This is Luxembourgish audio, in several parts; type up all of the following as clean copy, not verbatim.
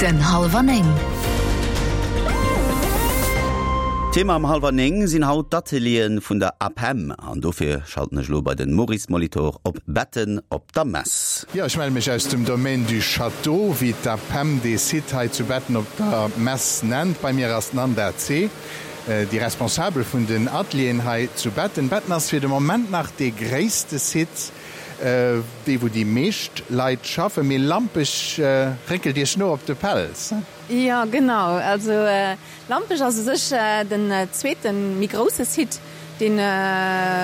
Den Hallwer 9. Thema am Hallwer 9 sinn haut d'Ateliere vun der APEM an dofir schalten ech elo bei den Maurice Molitor op Betten op der Mess. Jo, ech melle mech aus dem Domaine du Château, wéi d'APEM dee Site hei zu Betten op der Mess nennt. Bei mir ass d'Nanda Zeh, déi Responsabel vun den Atelieren hei zu Betten. Betten ass fir de Moment nach dee gréisste Site. Dee wou déi meescht Leit schaffen. Mee Lampech réckelt iech no op de Pelz. Jo genau, also Lampech ass u sech den zweete méi grousse Site, deen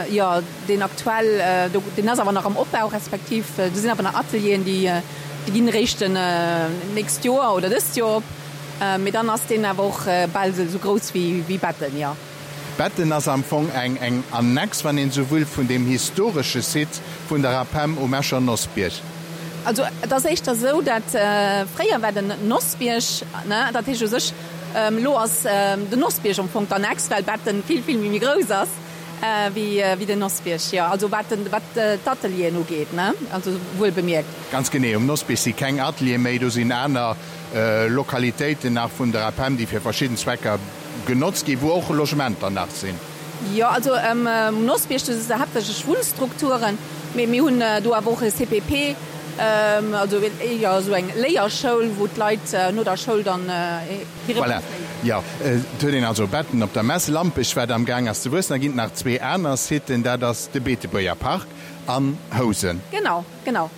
jo deen aktuell, deen ass awer nach am Opbau, respektiv do sinn awer nach Atelieren, déi déi ginn eréischt nächst Joer oder dëst Joer op, mee dann ass deen awer och bal esou grouss wéi Betten, jo. Betten ass am Fong eng eng Annex, wann een esou wëll, vun deem historesche Site vun der APEM um Escher Nossbierg. Also et ass éischter esou, dat fréier war den Nossbierg, ne, dat heescht u sech elo ass den Nossbierg am Fong d'Annex, well Betten vill, vill méi grouss ass wéi wéi den Nossbierg, jo. Also wat den, wat d'Atelieren ugeet, ne, also wuel bemierkt. Ganz genee, um Nossbierg si keng Ateliere méi, do sinn aner Lokalitéiten nach vun der APEM, déi fir verschidden Zwecker Genotzt ginn, wou och Logementer nach sinn. Jo, also um Nossbierg, do si se haaptsächlech Wunnstrukturen, mee mir hunn do awer och e CPP, also jo esou eng Léierschoul, wou d'Leit no der Schoul dann hire Voilà, jo. Et huet een also Betten op der Mess. Lampech, wat am Gaang ass ze wuessen. Da ginn et nach zwee aner Siten, dat ass de Beetebuerger Park an Housen. Genau, genau.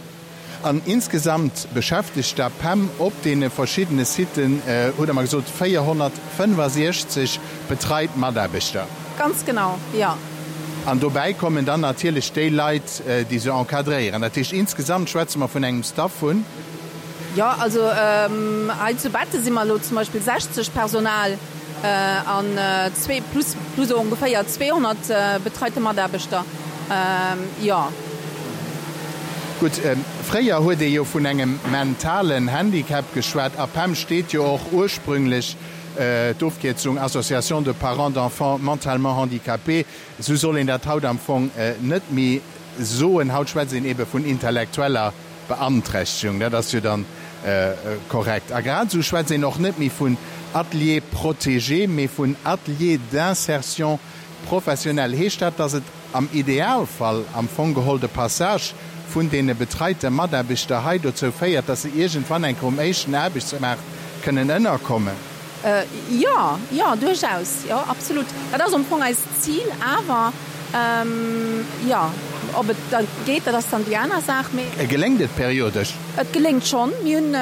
An insgesamt beschäftegt d'APEM op deene verschiddene Siten, hutt Der mer gesot, 465 betreit Mataarbechter. Ganz genau, jo. An dobäi kommen dann natierlech déi Leit, déi se encadréieren. Dat heescht, insgesamt schwätze mer vun engem Staff vun. Jo, also hei zu Betten si mer elo zum Beispill 60 Personal an zwee, plus, plus ongeféier 200 betreite Mataarbechter. Jo. Gutt, fréier huet ee jo vun engem mentalen Handicap geschwat. APEM steet jo och ursprünglech, d'Ofkierzung Association de parents d'enfants mentalement handicapés. Esou soll een dat haut am Fong net méi soen. Haut schwätzt een ebe vun intellektueller Beanträchtegung. Dat ass jo dann korrekt. A grad esou schwätzt een och net méi vun Atelier protégé, mee vun Atelier d'insertion Professionell heescht dat, dass et am Idealfall am Fong geholl de Passage vun deene betreite Mataarbechter hei dozou féiert, dass se iergendwann eng Kéier um éischten Aarbechtsmaart kënnen ënnerkommen? Jo, jo, duerchaus, jo, absolut. Dat ass am Fong eist Zil. Awer, jo, ob et da geet, dat ass dann déi aner Saach. Mee. Geléngt et periodesch? Et geléngt schonn. Mir hunn,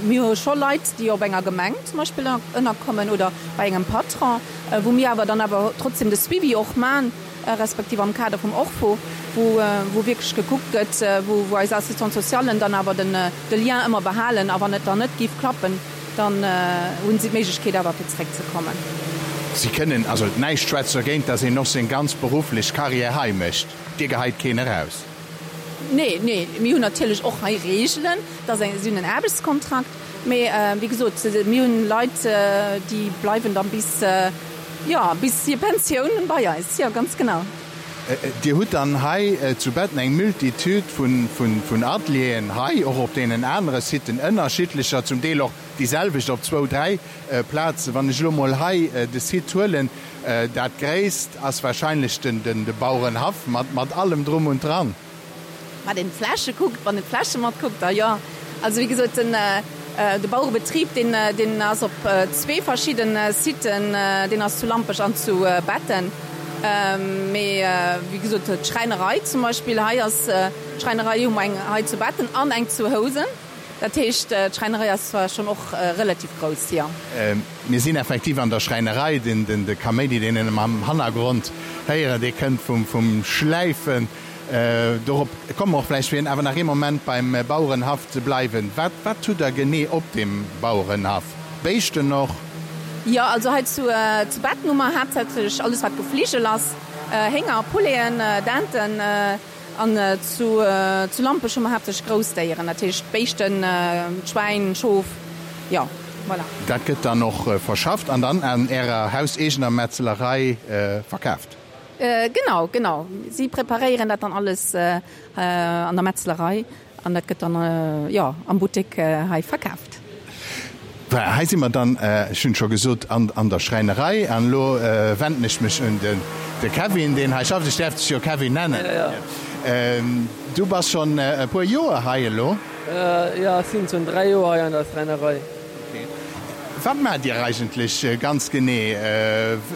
mir hu scho Leit, déi op enger Gemeng zum Beispill ënnerkommen oder bei engem Patron. wou mir awer dann awer trotzdem de Suivi och man, respektiv am Kader vum ORFO, wou wou wierklech gekuckt gëtt, wou wou eis Assistante-socialen dann awer den de Lien ëmmer behalen a wann et dann net géif klappen, dann hunn si d'Méiglechkeet awer fir zeréckzekommen. Si kënnen, also näischt schwätzt dergéint, dass een och seng ganz berufflech Carrière hei mécht. Dir geheit keen eraus? Nee, nee, mir hunn natierlech och hei Reegelen, et ass eng, si hunn en Aarbechtskontrakt, Mee wéi gesot, mir hunn Leit, déi bleiwen dann bis, jo, bis hir Pensioun bei eis. Jo, ganz genau. Dir hutt dann hei zu Betten eng Multitude vun Atelieren, hei och op deenen anere Siten ënnerschiddlecher, zum Deel och déi selwecht op zwou, dräi Plazen. Wann ech elo mol hei de Site huelen, dat gréisst ass wahrscheinlech de Bauerenhaff mat allem drum und dran. Wat een d'Fläche kuckt, wann een d'Fläche matkuckt, da jo. Also wéi gesot, den de Bauerebetrib, deen deen ass op zwee verschidde Siten, deen ass zu Lampech an zu Betten. Mee wéi gesot, d'Schräinerei zum Beispill, hei ass d'Schräinerei hu mer eng hei zu Betten an eng zu Housen. Dat heescht, d'Schräinerei ass zwar schonn och relativ grouss, jo. Mir sinn effektiv an der Schräinerei. De Kaméidi, deen een am Hannergrond héieren, dee kënnt vum Schläifen. Dorop komme mer och vläicht. Fir awer nach ee Moment beim Bauerenhaff ze bleiwen, Wat, wat hutt Der genee op deem Bauerenhaff? Béischten och? Jo, also hei zu Betten hu mer haaptsächlech alles, wat Gefligel ass, Hénger, Pouleten, Denten. An zu Lampech hu mer haaptsächlech Groussdéieren, dat heescht Béischten, Schwäin, Schof, jo, voilà. Dat gëtt dann och verschafft an dann an Ärer hauseegener Metzelerei verkaaft? Genau, genau. Si preparéieren dat dann alles an der Metzelerei an dat gëtt dann, jo, am Buttek hei verkaaft. Voilà, hei si mer dann, ech hunn et scho gesot, an der Schräinerei. An elo wenden ech mech un de Kevin, deen hei schafft. Ech däerf dech jo Kevin nennen. Du bass schonn e puer Joer hei elo? Jo, ech sinn schonn 3 Joer hei an der Schräinerei. Wat maacht Dir eigentlech ganz genee?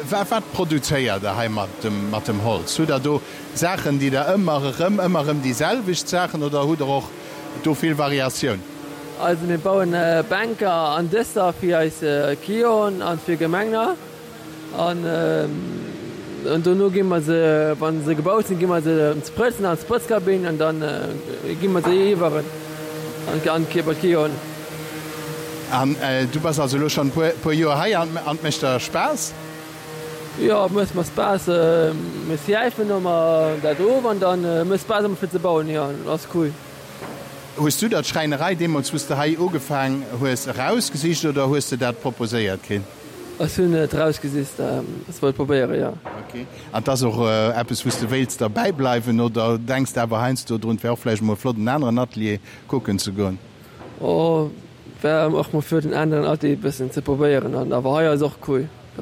Wat produzéiert Der hei mat dem Holz? Hutt Der do Saachen, déi Der ëmmer erëm, ëmmer erëm déi selwecht Saachen oder hutt Der och do vill Variatioun? Also mir bauen Bänker an Dëscher fir eis Clienten an fir Gemengner an dono gi mer se, wann se gebaut sinn, gi mer se sprëtzen an d'Sprëtzkabinn an dann gi mer se iwwer an bei d'Clienten. An du bass also elo schonn e puer Joer hei an et mécht der Spaass? Jo, et mécht mer Spaass. Mir schläifen ëmmer dat of an dann mécht Spaass ëmmer fir ze bauen, jo, ass cool. Hues du der d'Schräinerei deemools wou s de hei ugefaang hues erausgesicht oder hues de dat proposéiert kritt? Ech hunn et erausgesicht, ech wollt probéieren, jo. Ok. An 't ass och eppes wou s de wéilts derbäi bleiwen oder denks de awer heiansdo drun, 't wär och vläicht emol flott en aneren Atelier kucken ze goen? Oh, wär och mol flott en aneren Atelier bëssen ze probéieren an awer hei ass och cool. A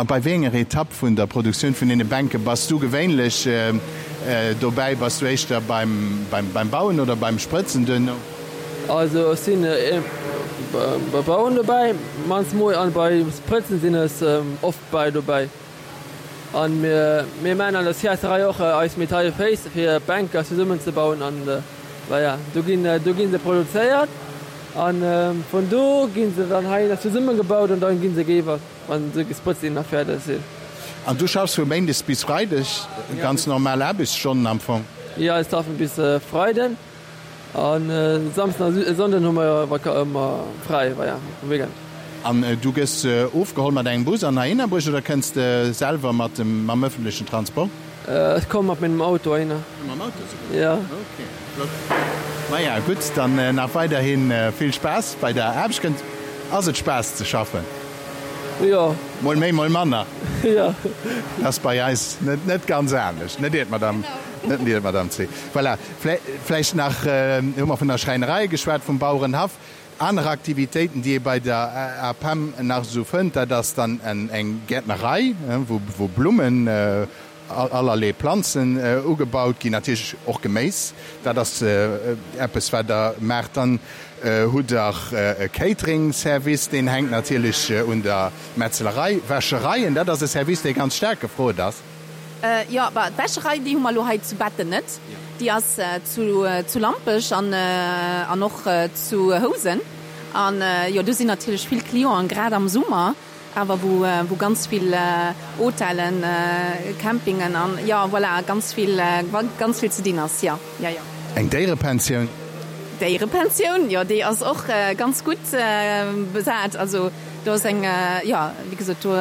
bei wéi enger Etapp vun der Produktioun vun deene Bänke bass du gewéinlech dobäi? Bass du éischter beim Bauen oder beim Sprëtzen duerno? Also ech sinn beim Bauen dobäi mannst mol an beim Sprëtzen sinn ech oft bei dobäi. An mir mir maan an der Sciacerei och eis metalle Féiss fir Bänker zesummen ze bauen an voilà do ginn do ginn se produzéiert an vun do ginn se dann hei nach zesummen gebaut an dann ginn se géiwer wann se gesprëtzt sinn a fäerdeg sinn. An du schaffs vu Méindes bis Freideg, ganz normal Aarbechtsstonnen am Fong? Jo, ech schaffen bis Freiden. An Samsden a Sonnden hu mer ëmmer fräi, voilà, um Weekend. An du gëss ofgeholl mat engem Bus an heihinner bruecht oder kënns de selwer mat dem, mam ëffentlechen Transport? Ech komme mat mengem Auto heihinner. Mam Auto souguer? Jo. Ok, flott. Maja, gutt, dann nach weiderhi vill Spaass bei der Aarbecht. Kënnt, ass et Spaass ze schaffen? Jo. Mol méi, mol manner. Jo. Ass bei eis net, net ganz anescht, net iert, Madame, net iert, Madame C. Voilà. Vläicht nach, hu mer vun der Schräinerei geschwat, vum Bauerenhaff. Aner Aktivitéiten, déi ee bei der APEM nach esou fënnt, dat ass dann eng Gäertnerei, wou Blummen, allerlee Planzen ugebaut ginn, natierlech och Geméis. Dat ass eppes, wat Der maacht. Dann hutt Der e Catering-Service, deen hänkt natierlech un der Metzelerei. Wäschereien, dat ass e Service, dee ganz staark gefrot ass. Jo, bah, d'Wäscherei, déi hu mer elo hei zu Betten net. Déi ass zu, zu Lampech an, an och zu Housen. An jo, do sinn natierlech vill Clienten, grad am Summer awer, wou, wou ganz vill Hotellen, Campingen an, jo, voilà, ganz vill, ganz vill ze dinn ass, jo, jo, jo. Eng Déierepensioun? Déierepensioun, jo, déi ass och ganz gutt besat. Also do ass eng, jo, wéi gesot, do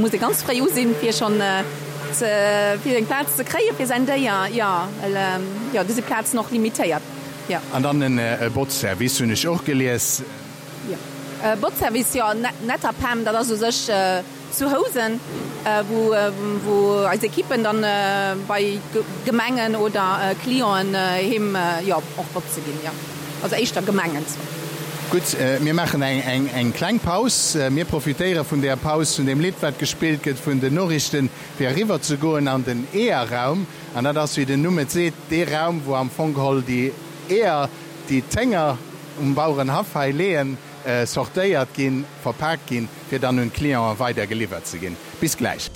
muss ee ganz fréi u sinn, fir schonn ze, fir eng Plaz ze kréie fir säin Déier, jo, well, jo, do si Plazen och limitéiert, jo. An dann e Botzservice hunn ech och gelies. Jo, e Botzservice, jo, Netterpem, dat ass u sech Zu Housen, wou eis Ekippen dann bei Gemengen oder Clienten heem, jo, och botze ginn, jo. Also éischter Gemengen zwar. Gutt, mir maachen eng kleng Paus. Mir profitéiere vun där Paus, vun deem Lidd, wat gespillt gëtt, vun den Noriichten, fir eriwwer ze goen an den Eeërraum. An dat ass, wéi den Numm et seet, dee Raum, wou am Fong geholl déi Eeër, déi d'Hénger um Bauerenhaff hei leeën, sortéiert ginn, verpaakt ginn, fir dann un d'Clienten weider geliwwert ze ginn. Bis gläich.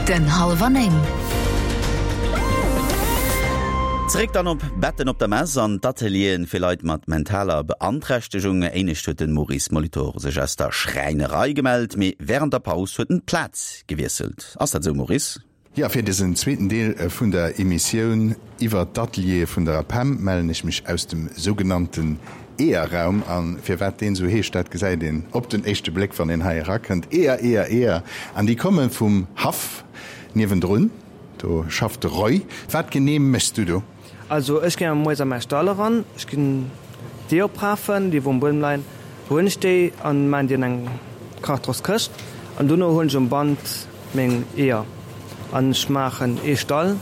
Den Halwer 9. Zeréck dann op Betten op der Mess an d'Atelieren fir Leit mat mentaler Beanträchtegung. Éinescht huet den Maurice Molitor sech aus der Schräinerei gemellt, mee wärend der Paus huet en d'Plaz gewiesselt. Ass dat esou Maurice? Jo, fir dësen zweeten Deel vun der Emissioun iwwert d'Ateliere vun der APEM mellen ech mech aus dem sougenannten Eeërraum. A firwat deen esou heescht, dat gesäit een op den éischte Bléck, wann een hei erakënnt. Eeër, Eeër, Eeër. An déi komme vum Haff niewendrun. Do schafft de Roy. Wat genee méchs du do? Also ech ginn moies a mäi Stall eran, ech ginn d'Eeër oprafen, déi wou um Buedem leien, huelen ech déi an maan déi an eng Kartonskëscht an dono huelen ech um Band meng Eeër an ech maachen ee Stall,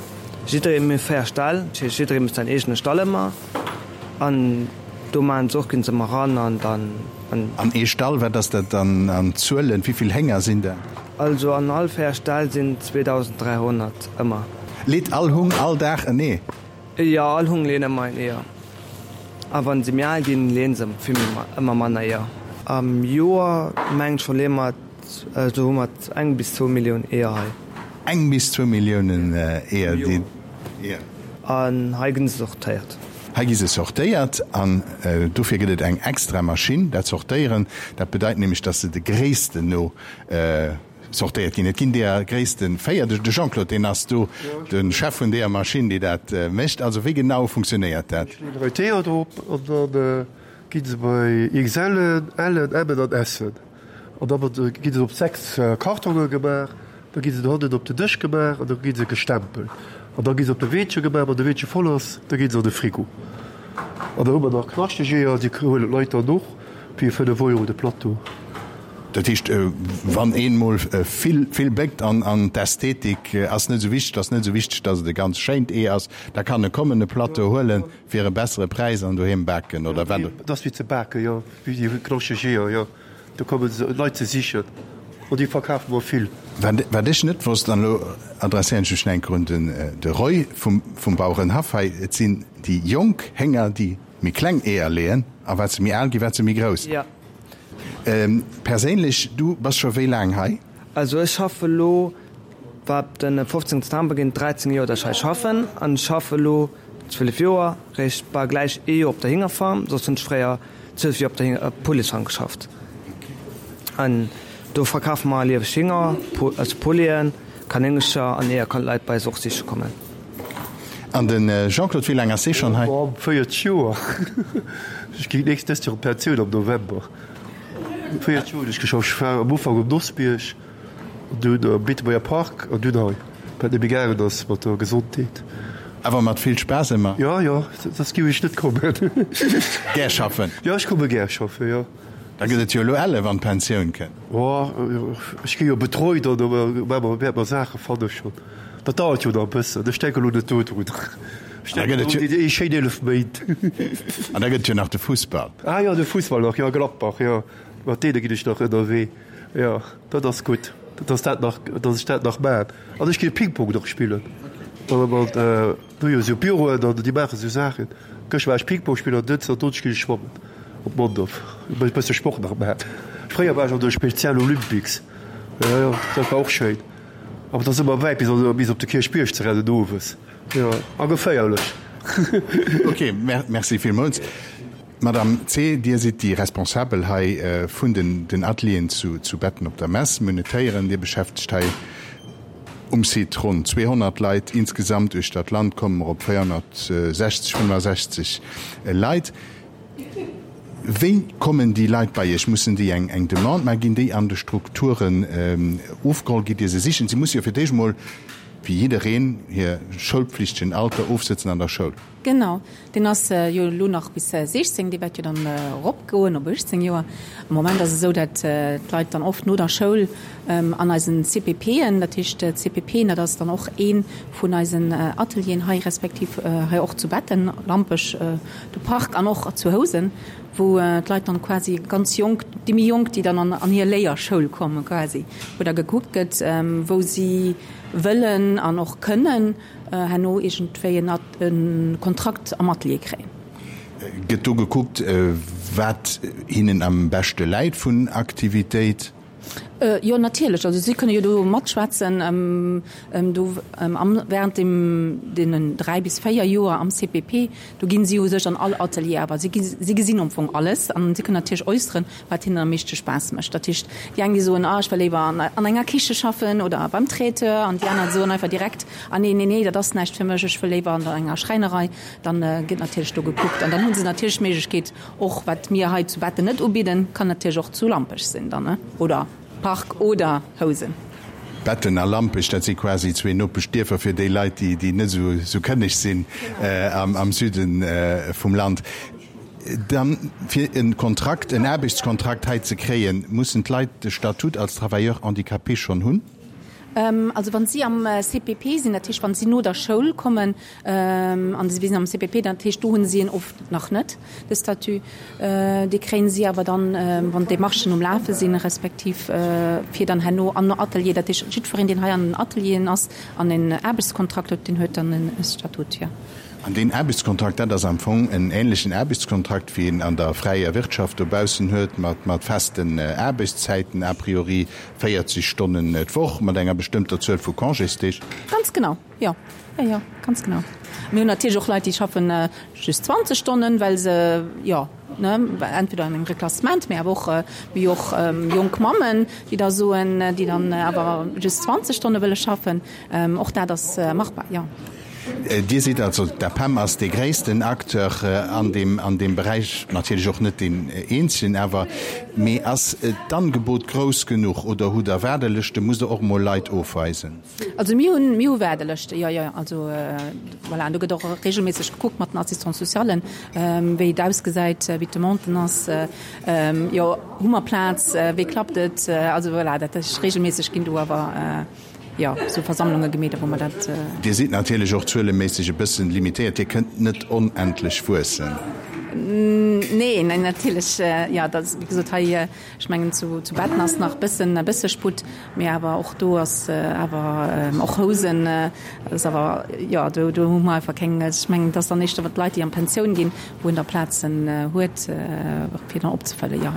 jidderee, mir hu 4 Ställ, dat heescht jidderee mécht säin eegene Stall ëmmer an. Do maachen se och, ginn se ëmmer ran an dann. An ee Stall, wat ass dat dann an Zuelen? Wéi vill Hénger sinn dat? Also an all 4 Ställ sinn 2.300 ëmmer. Leet all Hung all Dag en Ee? Jo, all Hung leeën ëmmer een Eeër. A wann se méi al ginn, leeën se vill méi, ëmmer manner Eeër. Am Joer mengen ech verleeë mer, also hu mer eng bis zwou Millioun Eeër hei. Eng bis zwou Milliounen Eeër, déi. An hei ginn se sortéiert. Hei gi se sortéiert an dofir gëtt et eng extra Maschinn, dat Sortéieren. Dat bedeit nämlech, dass se de Gréissten no sortéiert ginn. Et ginn deeër Gréisste 4. De Jean-Claude, deen ass do de Chef vun deeër Maschinn, déi dat mécht. Also wéi genau funktionéiert dat? Ech leeën hei d'Eeër drop an da gi se bei XLen, Len, Mmen an Sen. An da gi se op 6 Kartonge gemaach, da gi se dohannen op den Dësch gemaach an da gi se gestempelt. An da gi se op de Weedche gemaach, wann de Weedche voll ass, da gi se an de Frigo. An da hu mer nach knaschteg Eeër, déi huelen d'Leit dann och fir 5 Euro de Plateau. Dat heescht, wann een mol vill, vill béckt an an d'Ästhetik ass net esou wichteg, ass net esou wichteg, datt et e ganz schéint Ee ass, da kann e kommen, e Plateau huelen fir e bessere Präis an doheem baken, oder wat? Et ass wéi ze baken, jo, wéi déi knaschteg Eeër, jo. Do komme Leit se sichen an déi verkafe mer vill. Wat ech net wosst, an elo adresséieren ech mech nach eng Kéier un den de Roy vum Bauerenhaff hei, et sinn déi jonk Hénger, déi méi kleng Eeër leeën, a wat se méi al ginn, wat se méi grouss. Jo. Perséinlech, du bass scho wéi laang hei? Also ech schaffe elo, wat den 15 September ginn et 13 Joer, datt ech hei schaffen an ech schaffe elo 12 Joer, réischt bal gläich ee Joer op der Hingerfarm, soss hunn ech fréier 12 Joer op der Pouletsfarm geschafft an do verkafe mer lieweg Hinger, also Pouleten, Kanéngercher an Eeër kann d'Leit bei eis och siche kommen. An de Jean-Claude, wéi laang ass dee schonn hei? 40 Joer. Ech ginn nächst dëst Joer an d'Pensioun am November. 40 Joer hunn ech geschafft. Ech war am Ufank um Nossbierg. Dunn am Beetebuerger Park an dunn hei, well et net méi gaangen ass mat der Gesondheet. Awer mat vill Spaass ëmmer? Jo, jo, soss géif ech net kommen. Gär schaffen? Jo, ech komme gär schaffen, jo. Da gëtt et jo elo elle wann d'Pensioun kënnt. Jo, ech gi jo betreut an da wäerte mer Saache fanne schonn. Dat dauert jo nach e bëssen, ech denke elo net dodrun. Ech denken un déi schéin 11 Méint. An da gëtt et jo nach de Fussball. Ah jo, de Fussball nach, jo, Gladbach, jo, mat deene ginn ech nach ënnerwee. Jo, dat ass gutt, dass dat nach, dass ech dat nach maan. An ech ginn Ping-Pong nach spillen. Mat, do jo sou Büroen an déi maache sou Saachen. Gëschter war ech Ping-Pong spillen an dënschden an donneschden ginn ech schwammen op Mondorf. E bësse Sport nach maan. Fréier war ech an de Spezial Olympics. Jo, jo, dat war och schéin. Awer et ass ëmmer wäit bis an, bis op de Kierchbierg ze rennen owes. Jo, a geféierlech. Ok, merci villmools. Madame Zeh, Dir sidd déi Responsabel hei vun den Atelieren zu Betten op der Mess. Mir hunn et héieren, Dir beschäftegt hei um Site ronn 200 Leit. Insgesamt uechter d'Land komme mer op 460, 65 Leit. Wéi kommen déi Leit bei Iech? Mussen déi eng Demande maachen? Ginn déi an de Strukturen ofgeholl? Gitt Dir se sichen? Si musse jo fir d'éischt emol, wéi jiddereen, hir schoulpflichtegen Alter ofsëtzen an der Schoul. Genau, deen ass jo elo nach bis 16, dee wäert jo dann eropgoen op 18 Joer. Am Moment ass et esou, dat d'Leit dann oft no der Schoul an eisen CPPen, dat heescht CPPen, dat ass dann och ee vun eisen Atelieren hei, respektiv hei och zu Betten, Lampech, de Park an och zu Housen, wou d'Leit dann quasi ganz jonk, déi méi jonk, déi dann an hir Léierschoul kommen quasi, wou da gekuckt gëtt, wou si wëllen an och kënnen herno iergendwéi en Kontrakt am Atelier kréien. Gëtt do gekuckt, wat hinnen am beschte läit vun Aktivitéit? Jo, natierlech. Also si kënne jo do matschwätzen do während deem deenen 3 bis 4 Joer am CPP. Do ginn si u sech an all Atelier, awer si si gesinn am Fong alles an si kënnen natierlech äusseren, wat hinnen am meeschte Spaass mécht. Dat heescht, déi eng, déi soen, ah ech wëll léiwer an an enger Kiche schaffen oder beim Traiteur an déi aner soen einfach direkt, ah nee, nee, nee, dat ass näischt fir mech, ech wëll léiwer an enger Schräinerei. Dann gëtt natierlech do gekuckt an dann hu se natierlech d'Méiglechkeet och, wat mir hei zu Betten net ubidden, kann natierlech och zu Lampech sinn dann, ne, oder Park oder Housen. Betten a Lampech, dat si quasi zwee Nopeschdierfer fir déi Leit, déi net esou kënneg sinn am Süde vum Land. Dann, fir e Kontrakt, en Aarbechtskontrakt hei ze kréien, mussen d'Leit de Statut als Travailleur handicapé schonn hunn? Also wann si am CPP sinn, dat heescht wann si no der Schoul kommen an si sinn am CPP, dat heescht do hunn si en oft nach net, de Statut. Dee kréien si awer dann, wann d'Demarchen um Lafe sinn, respektiv fir dann herno an Atelier, dat heescht jiddwereen deen hei an den Atelieren ass an en Aarbechtskontrakt huet, deen huet dann e Statut, jo. An deen Aarbechtskontrakt, dat ass am Fong en ähnlechen Aarbechtskontrakt, wéi een an der fräier Wirtschaft dobaussen huet, mat festen Aarbechtszäiten, a priori 40 Stonnen d'Woch, mat enger bestëmmter Zuel vu Congésdeeg. Ganz genau, jo. Jo, jo, ganz genau. Mir hunn natierlech och Leit, déi schaffen just 20 Stonnen, well se, jo, ne, entweder an engem Reklassement, mee awer och, mir hu och jonk Mammen, déi da soen, déi dann awer just 20 Stonne wëlle schaffen. Och dat ass machbar, jo. Dir sidd also, d'APEM ass dee gréissten Acteur an deem, an deem Beräich, natierlech och net deen eenzegen awer, mee ass d'Angebot grouss genuch oder hutt Der Waardelëschten, musst Der och emol Leit ofweisen? Also mir hunn, mir hu Waardelëschte, jo, jo, also voilà, an do gëtt och regelméisseg gekuckt mat den Assistants-socialen, wéi et ausgesäit, wéi d'Demande ass, jo, hu mer Plaz, wéi klappt et, also voilà, dat ass regelméisseg ginn do awer. jo, sou Versammlunge gemeet, wou mer dat. Dir sidd natierlech och zueleméisseg e bëssen limitéiert, Dir kënnt net onendlech wuessen. Nee, nee, natierlech, jo, dat ass, wéi gesot, hei, ech mengen, zu, zu Betten ass nach bëssen, e bësse Sputt, mee awer och do ass awer, och Housen ass awer, jo, do, do hu mer einfach keng, ech mengen, et ass dann éischter d'Leit, déi an d'Pensioun ginn, wou een da Plazen huet, fir dann opzefëllen, jo.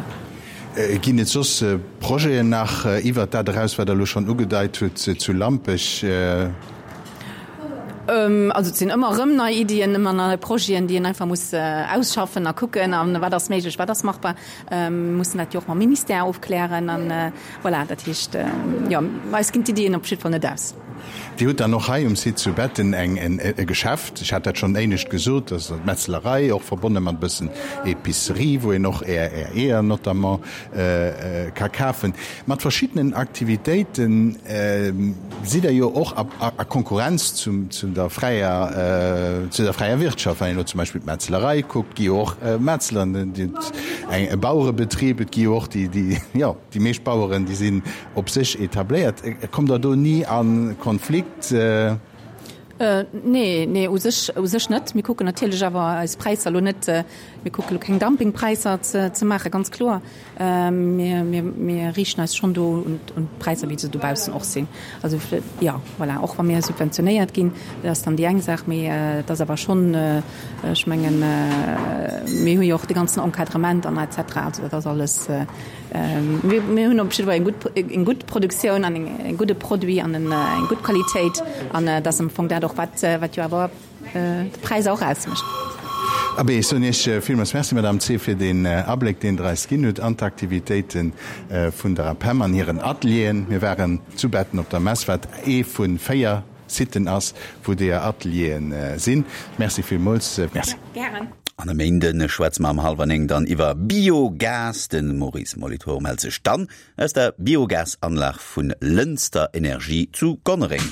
Ginn et soss Projeten nach iwwert dat eraus, wat Der elo schonn ugedeit hutt zu Lampech? Also et sinn ëmmer erëm nei Iddien, ëmmer nei Projeten, déi een einfach muss ausschaffen a kucken, a wat ass méiglech, wat ass machbar. Mir mussen dat jo och mam Ministère ofklären an voilà, dat heescht, jo, eis ginn d'Iddien op jidde Fall net aus. Dir hutt dann och hei um Site zu Betten eng e Geschäft, ech hat dat schonn éinescht gesot, dat ass d'Metzlerei, och verbonne mat e bëssen Epicerie, wou een och Är Är Eeër notamment ka kafen. Mat verschiddenen Aktivitéiten sidd Der jo och a a Konkurrenz zum zu der fräier zu der fräier Wirtschaft. Wann een elo zum Beispill d'Metzlerei kuckt, gi jo och Metzleren, eng e Bauerebetrib, et gi jo och déi déi jo. Déi meescht Baueren, déi sinn op sech etabléiert. Kommt Der do ni a Konflikt? Nee, nee, u sech, u sech net. Mir kucken natierlech awer eis Präisser elo net, mir kucke elo keng Dumpingpräisser ze, ze maachen, ganz kloer. Mir, mir, mir riichten eis schonn do un, un d'Präisser, wéi se dobaussen och sinn. Also, jo, voilà, och wa mir subventionéiert ginn, dat ass dann déi eng Saach, mee et ass awer schonn, ech mengen, mir hu jo och de ganzen Encadrement an et cetera, also dat ass alles, Mir hunn op jidde Fall eng gutt, eng gutt Produktioun an e gudde Produit an eng gutt Qualitéit an et ass am Fong dat och, wat, wat jo awer de Präis och ausmécht. Abee, ech soen Iech villmools Merci, Madame Zehr, fir deen Abléck, deen Der eis ginn hutt an d'Aktivitéite vun der APEM an hiren Atelieren. Mir waren zu Betten op der Mess, wat ee vu 4 Siten ass, wou deeër Atelieren sinn. Merci villmools. Merci. Gären. An e Méinde schwätze mer am hallwer 9 dann iwwer Biogas. De Maurice Molitor mellt sech dann aus der Biogasanlag vun Lënster Energie zu Gonnereng.